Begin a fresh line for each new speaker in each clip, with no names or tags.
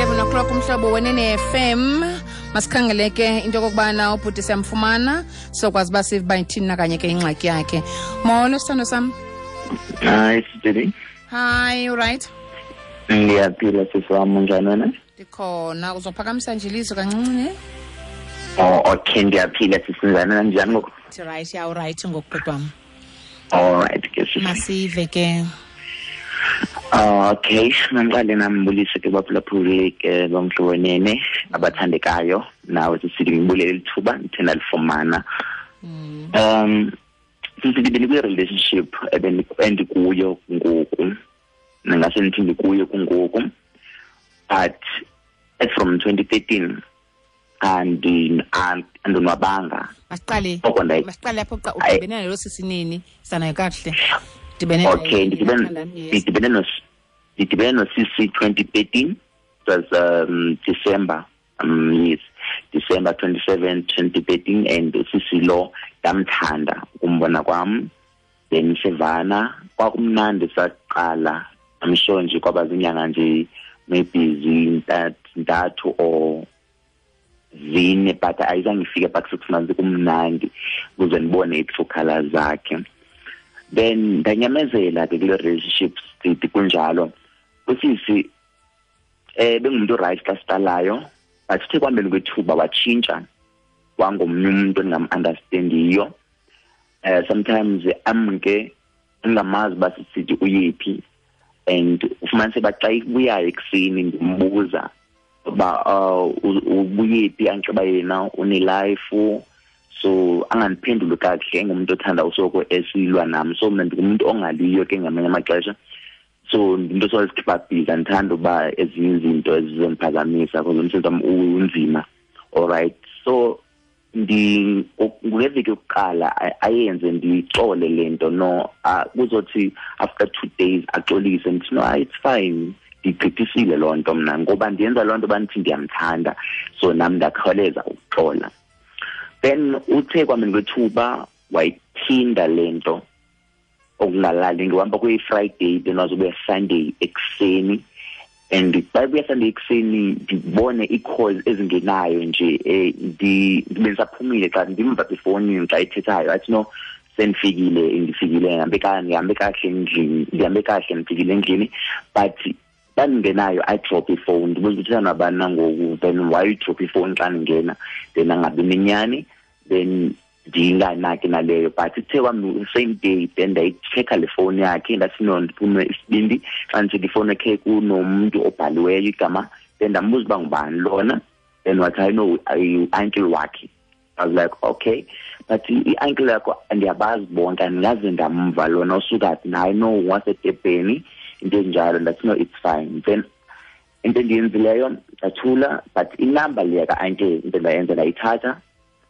11 o'clock, Umhlobo Wenene FM. Masikhangele ke into yokokubana ubhuti siyamfumana, sokwazi uba sive uba ithini na kanye ke ingxaki yakhe. Molo, sithando sam.
Hayi, sisidi.
Hi, uright?
Ndiyaphila, sisi wam, unjani wena?
Ndikhona. Uzophakamisa nje ilizwi kancinci, ne?
Oh, okay, ndiyaphila, sisi. Njani wena, njani ngoku?
Right, ya, uright ngoku, bhuti wam.
Alright ke, sisi.
Masive ke.
Okay, mandiqale nambulise ke baphulaphuli ke boMhlobo Wenene abathandekayo, nawe sisidi, ngibulele lithuba ndithe ndalifumana. Sisidi, bendikwi-relationship endikuyo ngoku, ndingase ndithi ndikuyo kungoku, but as from 2013 andonwabanga.
Masiqale.
Oko
Masiqale apho xa
Ayi.
udibene nalo sisi nini? Sanayo kakuhle. Dibene
Okay,
naye
ndidibene
yes.
ndidibene nosisi 2013. It was December, yes, December 27, 2013, and usisi lo ndamthanda ukumbona kwam. Then sivana, kwakumnandi saqala. I'm sure nje kwaba zinyanga nje maybe zintathu or 4, but ayizange ifike back 6 months, kumnandi ukuze ndibone i-true colors zakhe. Then ndanyamezela ke kule relationship, sithi kunjalo. Usisi bengumuntu right xa siqalayo, but sithe kuhambeni kwethuba watshintsha wangomnye umuntu endingam-understandiyo. Sometimes amke ndingamazi uba sisithi uyephi, and ufumanise uba xa ibuyayo ekuseni ndimbuza uba ubuyephi, anxiba yena une-life, so angandiphenduli kakuhle, engumuntu othanda usoko esilwa nam. So mna ndingumuntu ongaliyo ke ngamanye amaxesha, so ndinto sozikhipha busy, andithanda uba ezinye izinto ezizondiphazamisa because umsebenzi wam unzima. Alright, so ngeveki yokuqala ayenze ndiyixole le nto, no, kuzothi after 2 days axolise, ndithi no, it's fine, ndigqithisile loo nto mna ngoba ndiyenza loo nto bandithi ndiyamthanda, so nam ndakhawuleza ukuxola. Then uthe kwameni kwethuba wayiphinda le nto okungalali, ngihamba kuyi-Friday, then wazobuya Sunday ekuseni, and xa ebuya Sunday ekuseni ndibone ii-calls ezingenayo nje, ndibe ndisaphumile xa ndimva efowunini xa ethethayo, athi no, sendifikile, ndifikile, ndihambe kakuhle endlini, ndihambe kakuhle, ndifikile endlini, but xa ndingenayo I drop ifowuni, ndibuza ukuthi uthetha nabani na ngoku, then why you drop ifowuni xa ndingena, then angabi nenyani, then ndinganaki naleyo. But ithe kwam same day, then ndayitshekha le fowuni yakhe, ndathi no, ndiphume isibindi xa nditshekha ifowuni yakhe kunomntu obhaliweyo igama, then ndambuza uba ngubani lona, then wathi hayi no, i-uncle wakhe. I was like okay, but i-uncle yakho ndiyabazi bonke, andingaze ndamva lona usuka phi, naye no wasedebheni, into enjalo. Ndathi no, it's fine. Then into endiyenzileyo ndathula, but inamba leya ka-uncle into endayenza ndayithatha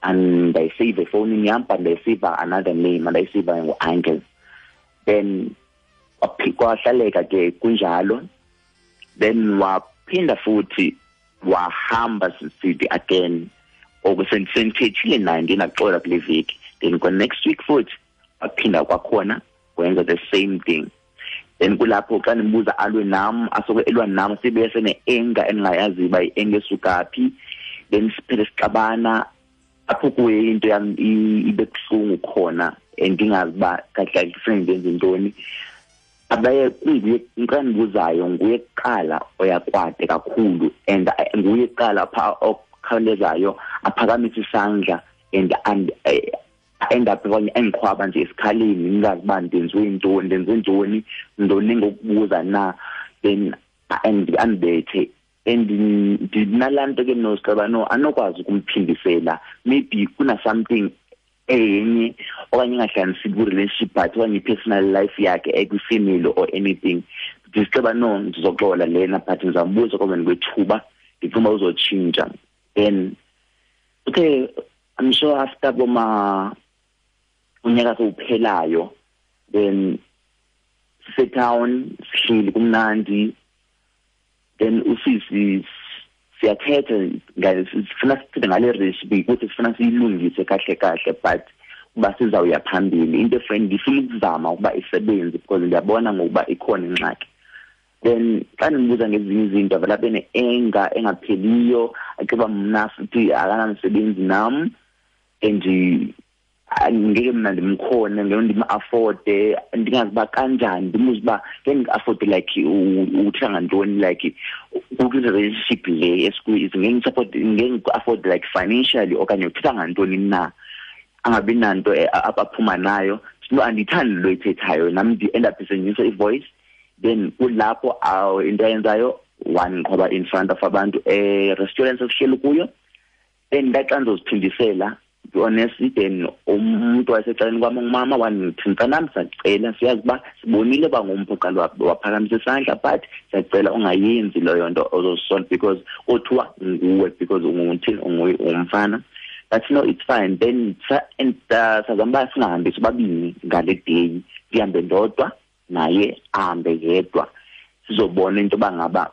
and ndayiseyiva efowunini yam, but ndayiseyiva another name, andayiseyiva ngu-uncle. Then kwahlaleka ke kunjalo. Then waphinda futhi wahamba sisithi again, oku sendithethile naye ndinaxola kule veki. Then kwa next week futhi waphinda kwakhona wenza the same thing. Then kulapho xa ndimbuza alwe nam, asoke elwa nam, sibe sene-anger endingayaziyo uba i-anger esuka phi. Then siphele sixabana, apho kuye into yam ibe buhlungu khona, and ndingazi uba kahle kahle kufuneka ndenze ntoni. Abaye kunguye xa ndibuzayo, nguye kuqala oyakwade kakhulu, and nguye kuqala pha okhawulezayo aphakamise isandla and end up okanye endiqhwaba nje esikhaleni, ndingazi uba ndenziwe ntoni, ndenze ntoni, ntoni ngokubuza na, then andibethe. And ndinalaa nto ke nosiceba no anokwazi ukumphindisela, maybe kuna something enye okanye ingahlanganisi kwi-relationship but okanye i-personal life yakhe ekwi-family or anything. Ndisiceba no, ndizoxola lena, but ndizambuza kwameni kwethuba, ndicinga uba uzotshintsha. Then okay, I'm sure after boma unyaka sowuphelayo, then sisetown sihleli kumnandi, then usisi siyathetha, sifuna sithethe ngale recipe ukuthi sifuna siyilungise kahle kahle, but uba sizawuya phambili into efriend ndifuna ukuzama ukuba isebenze because ndiyabona ngokuba ikhona ingxaki. Then xa ndimbuza ngezinye izinto avele abe ne-anger engapheliyo, aciba mna futhi akanamsebenzi nam and ngeke mna ndimkhone, ngeke ndim-afforde, ndingazi uba kanjani, ndimbuze uba ngeke ndi-afforde like uthetha ngantoni, like kwi-relationship le esikuyo ngeke ndisupport, ngeke ndiku-afforde like financially okanye uthetha ngantoni na, angabi nanto aphuma nayo. No, andiyithandi lo ithethayo nam, ndi-end up ndisenyusa i-voice. Then kulapho into ayenzayo wandiqhoba in front of abantu e-restaurant sesihleli kuyo. Then ndaxa ndizoziphindisela, be honest, then umuntu wayesecaleni kwam ungumama wandithi, mntanam, siyacela, siyazi uba sibonile uba ngumphi oqala waphakamisa isandla, but siyacela ungayenzi leyo nto ozozisola because kothiwa nguwe because unguthini, ungumfana. But no, it's fine. Then and sazama uba singahambi sobabini ngale day, ndihambe ndodwa naye ahambe yedwa, sizobona into yoba ngaba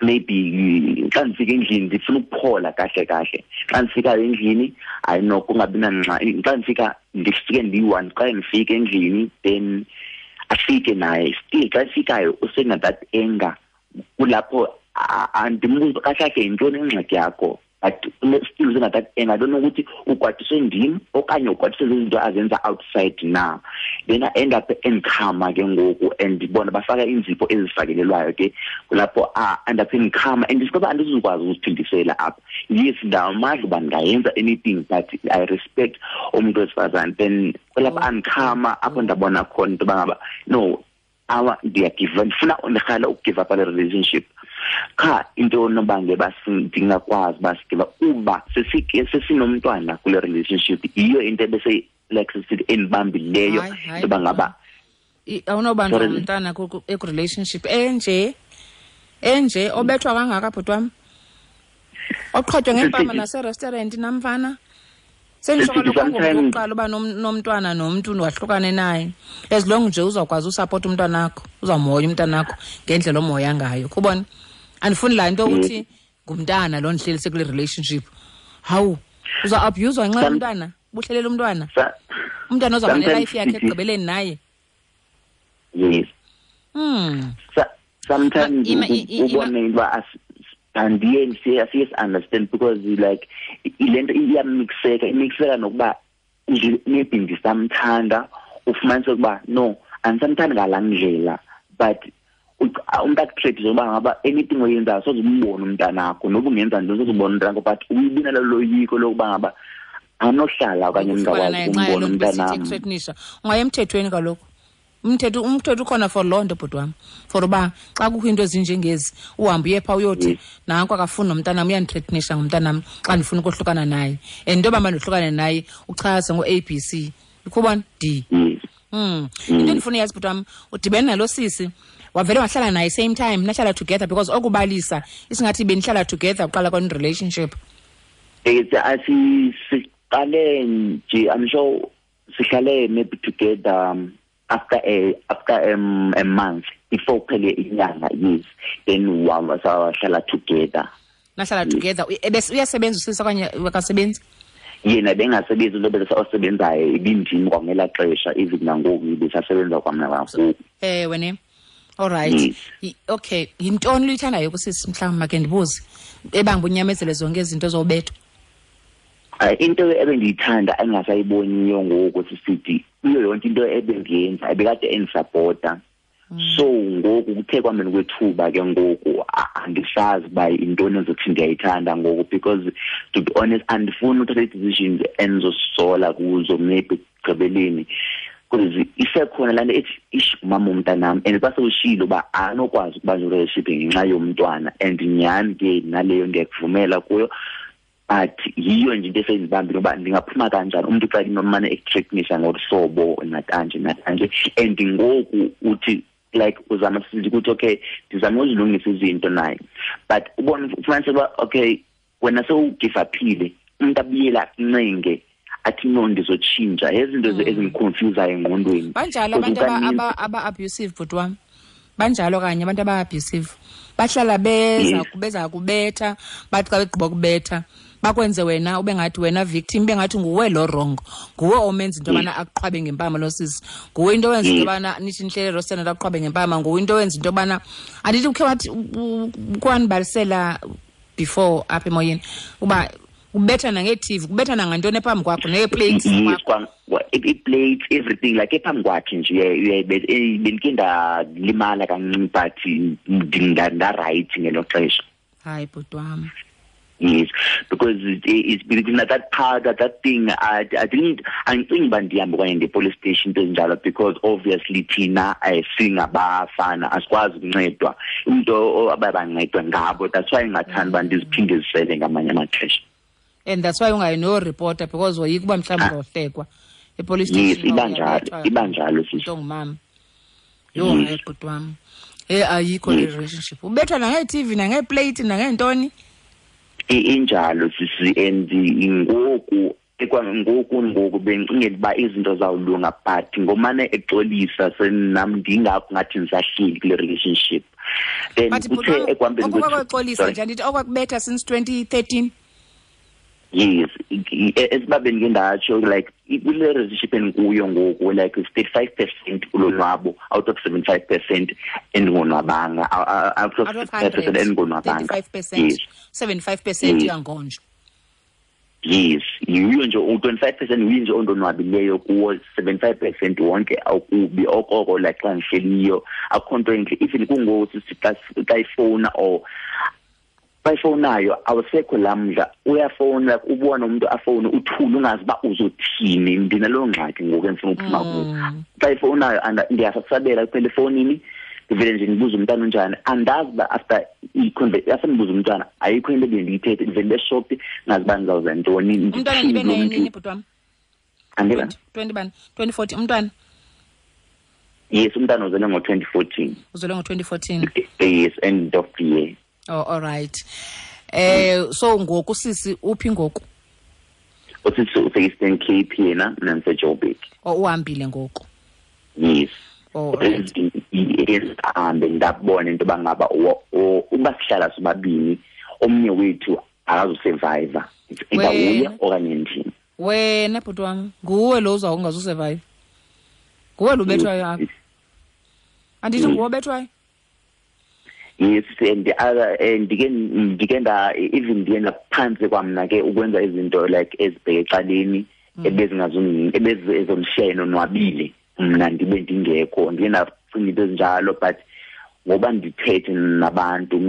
maybe xa ndifika endlini ndifuna ukuphola kahle kahle. Xa ndifikayo endlini, hayi no, kungabi nangxaki. Xa ndifika ndifike ndiyi-one, xa ndifika endlini then afike naye still. Xa efikayo usena that anger, kulapho andimbuza kahle kahle yintoni ingxaki yakho, but still usena that anger. I don't know ukuthi ukwatiswe ndim okanye ukwatiswe zizinto azenza outside na. Then I end up endikhama ke ngoku, and bona bafaka iinzipho ezifakelelwayo ke, kulapho end up endikhama and ndisikoba andizukwazi ukuziphindisela apha. Yes, ndinamandla uba ndingayenza anything, but I respect umntu wesifazane. Then kulapho andikhama apho ndabona khona into yoba ngaba no, awa ndiyagiva, ndifuna ndirhala ukugive up le relationship. Qha into onobangela uba ndingakwazi uba sigive up uba sesinomntwana kule relationship, yiyo into ebese like sisithi endibambileyo
Hayi, hayi,
into yoba ngaba
awunobanjwa
Sorry.
ngumntana eku-relationship enje obethwa kangaka, bhuti wam, oqhotywa ngempama naserestaurant namfana. Senditsho
Sisithi
kaloku
sometimes
ngokuqala uba nomntwana nomntu wahlukane naye, as long nje uzawukwazi usapota umntwanakho, uzawumhoya umntwanakho ngendlela omhoya ngayo. Kubona, andifuni laa nto ukuthi ngumntana lo ndihleli sekule relationship. Hawu, uza-abhuyuzwa ngenxa yomntwana, buhlelela umntwana. Umntwana uzawuba
Sometimes
nelife yakhe
sithi
ekugqibeleni naye.
Yes. Sometimes ubone into uba andiye siye si-understand because like le nto iyamixeka, imixeka nokuba maybe ndisamthanda, ufumanise ukuba no, andisamthandi ngalaa ndlela, but umntu akutreat njengoba ngaba anything oyenzayo soze umbone umntanakho, noba ungenza ntoni soze umbone umntanakho, but uyibona loyiko lokuba ngaba anohlala okanye
Ukufana
ndingakwazi
naye nxa
ukumbona
yaloo nto besithi
umntanam.
ekuthreatenisha. Ungaya emthethweni kaloku. Umthetho ukhona for loo nto, bhuti wam, for uba xa kukho iinto ezinjengezi uhambe uye phaa uyothi nanku akafuni nomntanam, uyandithreatenisha ngumntanam xa ndifuna ukohlukana naye, and into yoba mandohlukane naye uchaze ngo-A B C, ukhubona D. Into endifuna uyazi, bhuti wam, udibene nalo sisi wavele wahlala naye same time, nahlala together, because okubalisa isingathi benihlala together uqala kwan-relationship.
Siqale nje, I'm sure sihlale maybe together after a month before kuphele inyanga, yes, then sahlala together.
Nahlala
Yes.
together. Uyasebenza usisi okanye akasebenzi?
Yena bengasebenzi, into osebenzayo ibindim kwangelaa xesha, even nangoku ibisasebenza kwamna kakhulu.
Ewe ne. All right.
Yes.
Okay, yintoni luyithandayo kusisi, mhlawumbi make ndibuze, ebanga unyamezele zonke izinto zobethwa?
Into ebendiyithanda engasayiboniyo ngoku sisithi kuyo yonke into ebendiyenza ebekade endisapota. So ngoku kuthe kwameni kwethuba ke ngoku andisazi uba yintoni endizothi ndiyayithanda ngoku, because to be honest andifuni uthatha ii-decisions endizozisola kuzo maybe ekugqibeleni, because isekhona laa nto ethi ish umama womntanam, and xa sewushilo uba anokwazi ukuba ne-relationship ngenxa yomntwana, and nyhani ke naleyo ndiyakuvumela kuyo, but yiyo nje into esendibambile uba ndingaphuma kanjani umntu xa inomane ekuthreatenisa ngolu hlobo nakanje nakanje, and ngoku uthi like uzama sithi ukuthi okay ndizama uzilungisa izinto naye, but ubone ufumanise uba okay wena sewugive uphile, umntu abuyela akuncenge athi no ndizotshintsha, ezinto ezimconfusayo engqondweni.
Banjalo
Because
abantu
ukaninzi
aba-abusive, bhuti wam, banjalo kanye abantu aba-abusive, bahlala beza kubetha, bathi xa begqiba kubetha Bakwenze wena ube ngathi wena victim, ube ngathi nguwe lo wrong, nguwe omenza into yobana akuqhwabe ngempama lo sisi, nguwe into owenza into yobana nithi nihlele restaurant akuqhwabe ngempama, nguwe into owenza into yobana andithi ukhe wathi kwanibalisela before apha emoyeni uba kubetha nange-TV, kubetha nangantoni ephambi kwakho, nee-plates.
Yes, i-plates, everything like ephambi kwakhe nje. Bendike ndalimala kancinci but nda-right ngelo xesha.
Hayi bhuti wam.
Yes, because it's because that part, that thing, I didn't, andicingi uba ndihambe okanye ndiye-police station into ezinjalo, because obviously thina singabafana asikwazi ukuncedwa, umntu abaye bancedwa ngabo. That's why ndingathandi uba ndiziphindezisele ngamanye amaxesha.
And that's why ungayi noreporta, because woyika uba mhlawumbi uzohlekwa e-police station.
Yes, iba njalo sisi.
Ongumama. Yho, hayi bhuti wam. Ayikho le relationship. Ubethwa nange-TV, nange-plate, nangeentoni.
Injalo sisi, and ngoku bengicingela uba izinto zawulunga, but ngomane exolisa senam ndingakho ngathi ndisahleli kule relationship. Then kuthe ekuhambeni
kwexolisa nje andithi okwakubetha since 2013.
Yes, esiba bendike ndatsho like kule relationship endikuyo ngoku like 35% ulonwabo out of 75% endingonwabanga, out of 75% endingonwabanga.
35%, 75% uyangonjwa.
Yes, yiyo nje u-25% yiyo nje ondonwabileyo kuwo, 75% wonke awukubi okoko like xa ndihleliyo akukho nto entle. Even kungoku xa ifowuna or bayifowunayo awusekho lamdla, uyafowuna like ubona umuntu afowune uthule ungazi uba uzothini. Ndinaloo ngxaki ngoku endifuna uphuma kuyo. Xa ifowunayo ndiyasabela kuphela efowunini, ndivele nje ndibuze umntana unjani, andazi uba after after ndibuze umntwana ayikho into ebendiyithethe, ndivele ndeshopi ngazi uba ndizawuza ntoni.
Umntwana nibe naye nini bhuti wam?
Andiba?
2014 umntwana?
Yes, umntana uzelwe ngo-2014.
Uzelwe ngo-2014?
Yes, end of the year.
Oh, all right. So ngoku sisi uphi ngoku?
Usisi use-Eastern Cape yena, mna ndiseJoburg.
Oh, uhambile ngoku?
Yes.
Oh, right.
Yes, ahambe ndabona into yoba ngaba uba sihlala sobabini omnye wethu akazusurvive. It's either uye okanye ndim.
Wena bhuti wam, nguwe lo uzawungazusurvive. Nguwe lo ubethwayo apha. Andithi nguwe obethwayo?
Yes, and the other and ndike nda even ndiye ndaphantsi kwamna ke ukwenza izinto like ezibheke ecaleni ebezingazondishiya nonwabile mna ndibe ndingekho, ndiye ndacinga into ezinjalo, but ngoba ndithethe nabantu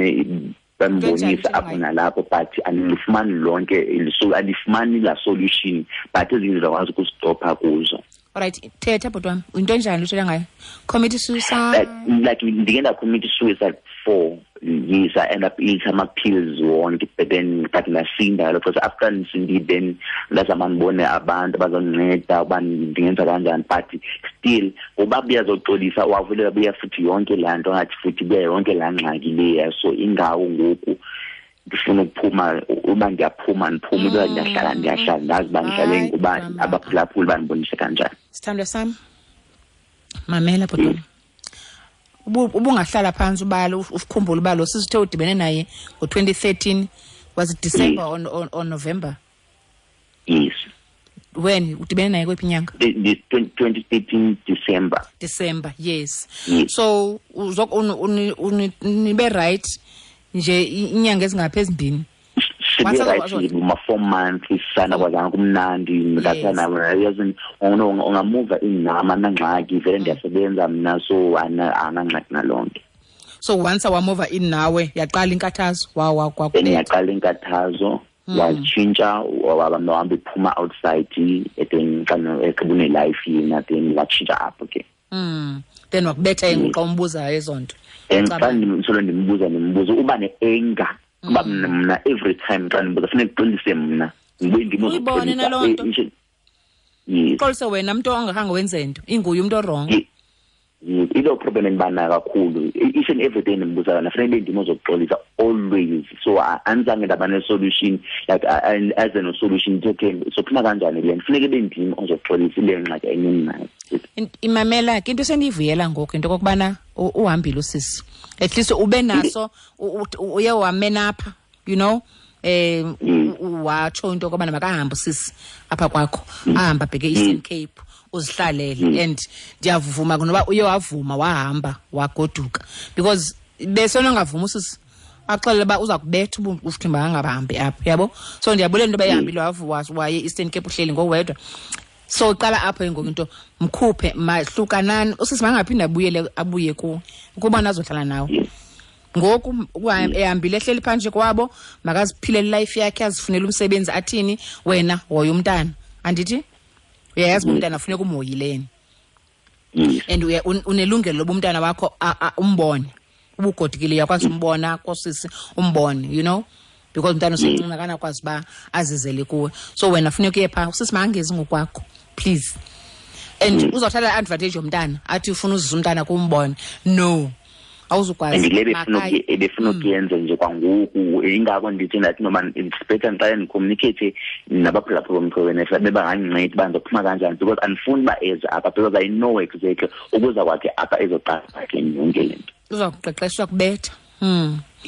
bambonisa apho nalapho, but andilifumani lonke andifumani la solution, but ezinye ndizakwazi ukuzistopha kuzo.
Alright, thetha bhuti wam, yinto enjani uthetha ngayo? Commit suicide?
Like ndike ndacommit suicide 4 years. I end up eating ama-pills wonke, but then but ndasinda lo because after ndisindile then ndazama ndibone abantu abazondinceda uba ndingenza kanjani, but still ngoba buyazoxolisa wavulela buya futhi yonke laa nto ngathi futhi buya yonke laa ngxaki leya. So ingawo ngoku ndifuna ukuphuma, uba ndiyaphuma ndiphume, uba ndiyahlala ndiyahlala, ndazi uba ndihlale ngoba abaphulaphuli bandibonise kanjani.
Sithandwa sam, mamela bhuti wam. Ubungahlala phantsi ubala ukukhumbula uba lo sisi uthe udibene naye ngo-2013, was it December or November?
Yes.
When udibene naye kwephi inyanga?
2013 December.
December, yes.
Yes.
So nibe right nje inyanga ezingaphi ezimbini?
Sibe right uma 4 months sana kwazana kumnandi ndathana yazi ungamuva inama nangxaki vele ndiyasebenza mna, so anangxaki nalonto.
So once wamuva in nawe yaqala inkathazo
then yaqala inkathazo watshintsha wahamba iphuma outside then xa ekubune life yena then watshintsha apho ke.
Then wakubetha xa umbuzayo ezo nto.
And xa ndisolo ndimbuza uba ne-anger kuba mna every time xa ndimbuza funeka ndixolise mna ndibuye
ndimbuze naloo nto.
Yes.
Xolise wena mntu ongakhange wenze nto, inguye umntu o-wrong.
Yes, ilo problem endibanayo kakhulu. Each and every day ndimbuza yona funeka ndibe ndim ozokuxolisa always. So andizange ndaba ne-solution like as a solution okay sophuma kanjani le nto, funeka ibe ndim ozokuxolisa ile ngxaki enye ndinayo.
Imamela ke into esendiyivuyela ngoku into okokubana uhambile usisi, at least ube naso uye wamenapha, you know, watsho into yokobana makahambe usisi apha kwakho, ahambe abheke e-Eastern Cape, uzihlalele. And ndiyavuma noba uye wavuma wahamba wagoduka, because besenongavuma usisi axelele uba uza kubetha ufuthi makangahambi apha, yabo. So ndiyabulela into yoba ehambile waye e-Eastern Cape, uhleli ngowedwa. So qala apho ngoku into, mkhuphe, mahlukanani usisi, makangaphinde abuyele abuye kuwe ukuba nazohlala nawe. Ngoku ehambile ehleli phantsi kwabo, makaziphilele life yakhe, azifunele umsebenzi, athini. Wena hoya umntana, andithi uyayazi uba umntana funeka umhoyileni? And unelungelo loba umntana wakho umbone. Ubugodukile uyakwazi umbona kosisi, umbone, you know, because umntana usemncinci, akanakwazi uba azizele kuwe. So wena funeka uye phaa, usisi makangezi ngokwakho, please. And uzawuthatha i-advantage yomntana, athi ufuna uzisa umntana kumbone. No, awuzukwazi.
And le ebefuna ukuyenza nje kwangoku, ingako ndithi ndathi noba it's better ndiqale ndicommunicate nabaphulaphula boMhlobo Wenene, bebangandincedi uba ndizophuma kanjani, because andifuni uba eze apha, because I know exactly ukuza kwakhe apha ezoqala kwakhe yonke le nto.
Uza kuqeqeshwa kubetha.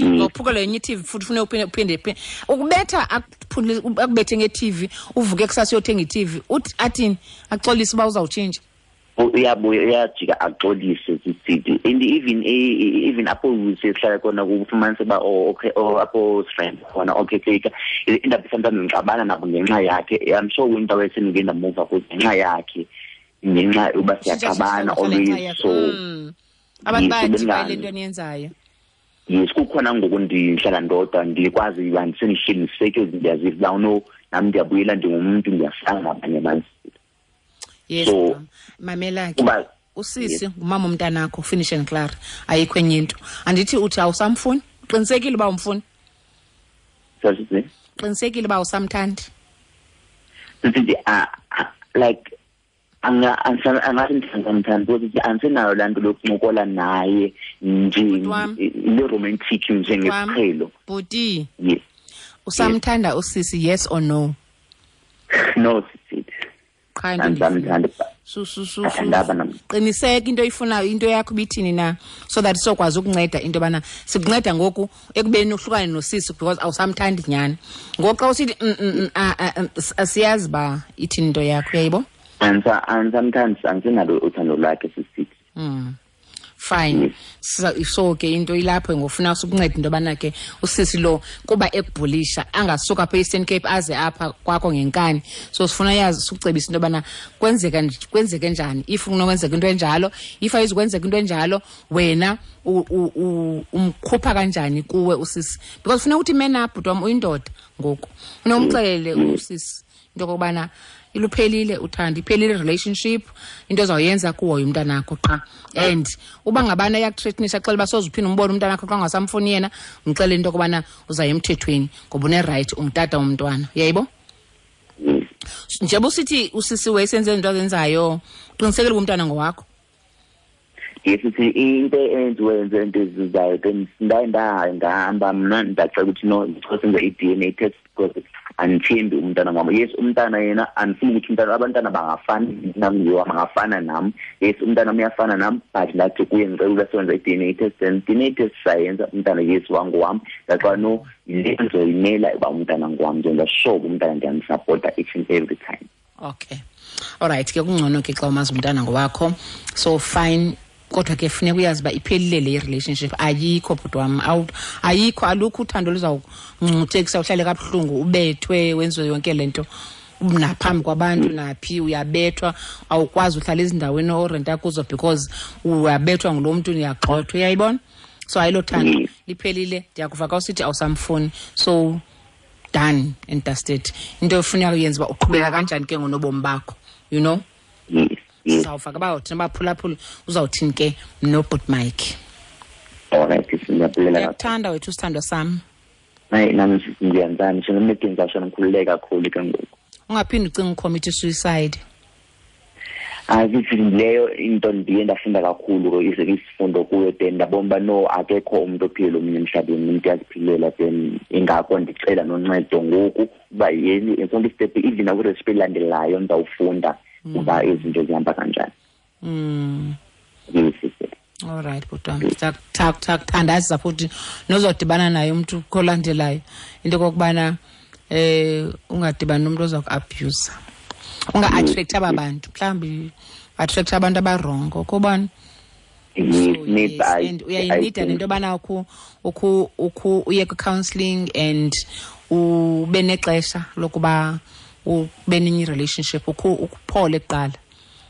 Ngophukela yenye i-TV futhi, ufune uphinde ukubetha, akubethe nge-TV, uvuke kusasa uyothenga i-TV, uthi athini? Axolise uba uzawutshintsha?
Uyabuya, uyajika axolise, sisithi. And even apho sihlala khona, kufumanise uba, oh okay, oh apho friend khona, okay, take indaba, sometimes ngixabana nabo ngenxa yakhe. I'm sure into wesendike ndamuva kuzo ngenxa yakhe, ngenxa uba siyaxabana always, so
Abantu bayathi le nto eniyenzayo.
Yes, kukhona ngoku ndihlala ndodwa, ndikwazi uba ndisendihleli ndisettled, ndiyaziva uba no, nam ndiyabuyela, ndingumntu, ndiyafana nabanye abantu.
Yes.
So,
mamela ke, usisi ngumama umntanakho, finish and klaar, ayikho enye into. Andithi uthi awusamfuni? Qinisekile uba umfuni?
Sorry?
Qinisekile uba awusamthandi?
Sithi like angathi ndithandamthandi, because andisenayo laa nto lokuncokola naye nje, le romantic njengesiqhelo.
Bhuti.
Yes.
Usamthanda usisi, yes or no?
No, sisi.
Qha into
Andisamthandi.
Su su su.
Andaba nam.
Qiniseka into oyifunayo, into yakho ibithini na, so that sokwazi ukunceda into yobana sikunceda ngoku ekubeni uhlukane nosisi, because awusamthandi nyhani. Ngoku xa usithi asiyazi uba ithini into yakho, uyayibo?
Andisamthandi, andisenalo uthando lwakhe, sisithi.
Fine.
Yes.
So ke into ilapho ngofuna ukunceda into yobana ke usisi lo kuba ekubhulisha angasuka apha e-Eastern Cape aze apha kwakho ngenkani. So sifuna yazi, sikucebisa into yobana kwenzeke njani if kunokwenzeka into enjalo, if ayizukwenzeka into enjalo, wena umkhupha kanjani kuwe usisi, because funa ukuthi man up, bhuti wam, uyindoda ngoku. Funa umxelele usisi into yokokubana iluphelile uthando, iphelile relationship, into ozawuyenza kuhoya umntanakho qha. And uba ngabana iyakuthreatenisha, xela uba soze uphinde umbone umntanakho xa ungasamfuni yena, mxelele into yokubana uzaya emthethweni ngoba une-right, ungutata womntwana, uyayibo? Njengoba usithi usisi wayesenze izinto azenzayo, qinisekile uba umntwana ngowakho?
Yes, sithi into eyenziwe yenze into ezizayo, then ndaye ndahamba mna, ndacela ukuthi no, ndicela senze i-DNA test, because andithembi umntana ngwam. Yes, umntana yena andifuni ukuthi umntana, abantwana bangafani nam, ngiwam bangafana nam. Yes, umntana uyafana nam, but ndathi kuye ndicela uba senze i-DNA test, then DNA test sayenza, umntana yes wangowam. Ndaxa no, le ndizoyimela uba umntana ngowam, ndenza sure uba umntana ndiyamsapota each and every time.
Okay, alright ke, kungcono ke xa umazi umntana ngowakho, so fine. Kodwa ke funeka uyazi uba iphelile le relationship, ayikho, bhuti wam, ayikho, alukho uthando luzawungcuthekisa uhlale kabuhlungu, ubethwe, wenziwe yonke le nto naphambi kwabantu, naphi uyabethwa, awukwazi uhlala ezindaweni orenta kuzo because uyabethwa ngulo mntu, uyagxothwa, uyayibona? So ayilo thando, liphelile. Ndiyakuva xa usithi awusamfuni, so done and dusted. Into ofuneka uyenze uba uqhubeka kanjani ke ngonobomi bakho, you know?
Yes.
Sizawuva ke uba thina baphulaphula uzawuthini ke noBhut Mike.
Alright, siyabulela kakhulu.
Ndiyakuthanda wethu, sithandwa sam.
Hayi, nami ngiyenzani, ngisho noma ngizasho ngikhululeka kakhulu ke ngoku.
Ungaphinde ucinge ucommit suicide.
Hayi, sithi leyo into ndiye ndafunda kakhulu ke, isifundo kuyo, then ndabona uba no, akekho umuntu ophila omunye emhlabeni, umuntu uyaziphilela, then ingakho ndicela noncedo ngoku uba yeni sonke istep, even nakwirecipe elandelayo ndizawufunda uba izinto zihamba kanjani. Yes, sister.
All right, bhuti wam. Ndizakuthandaza futhi nozodibana naye umntu kolandelayo into okokubana Ungadibani nomntu oza ku-abuse, unga-attract aba bantu, mhlawumbi attract abantu abarongo kobani.
So,
yes, and uyayinida nento yobana ukhu uye kwi-counselling and ube nexesha lokuba ube nenye i-relationship, ukuphole kuqala,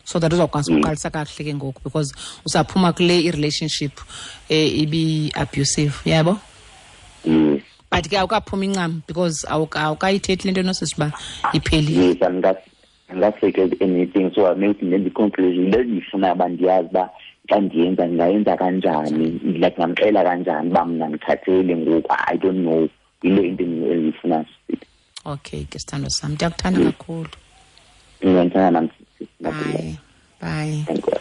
so that uzawukwazi ukuqalisa kakuhle ke ngoku, because usaphuma kule i-relationship ibi-abusive, yabo? But ke awukaphumi incam, because awukayithethi le nto nosisi uba iphelile.
Yes, andikasettled anything, so maybe ndenze i-conclusion le ndiyifuna uba ndiyazi uba xa ndiyenza ndingayenza kanjani, like ndingamxelela kanjani uba mna ndikhathele ngoku. I don't know, yile into endiyifuna.
Okay ke, sithando sam, ndiyakuthanda kakhulu.
Ndiyandithanda nam.
Bye bye.
Thank you.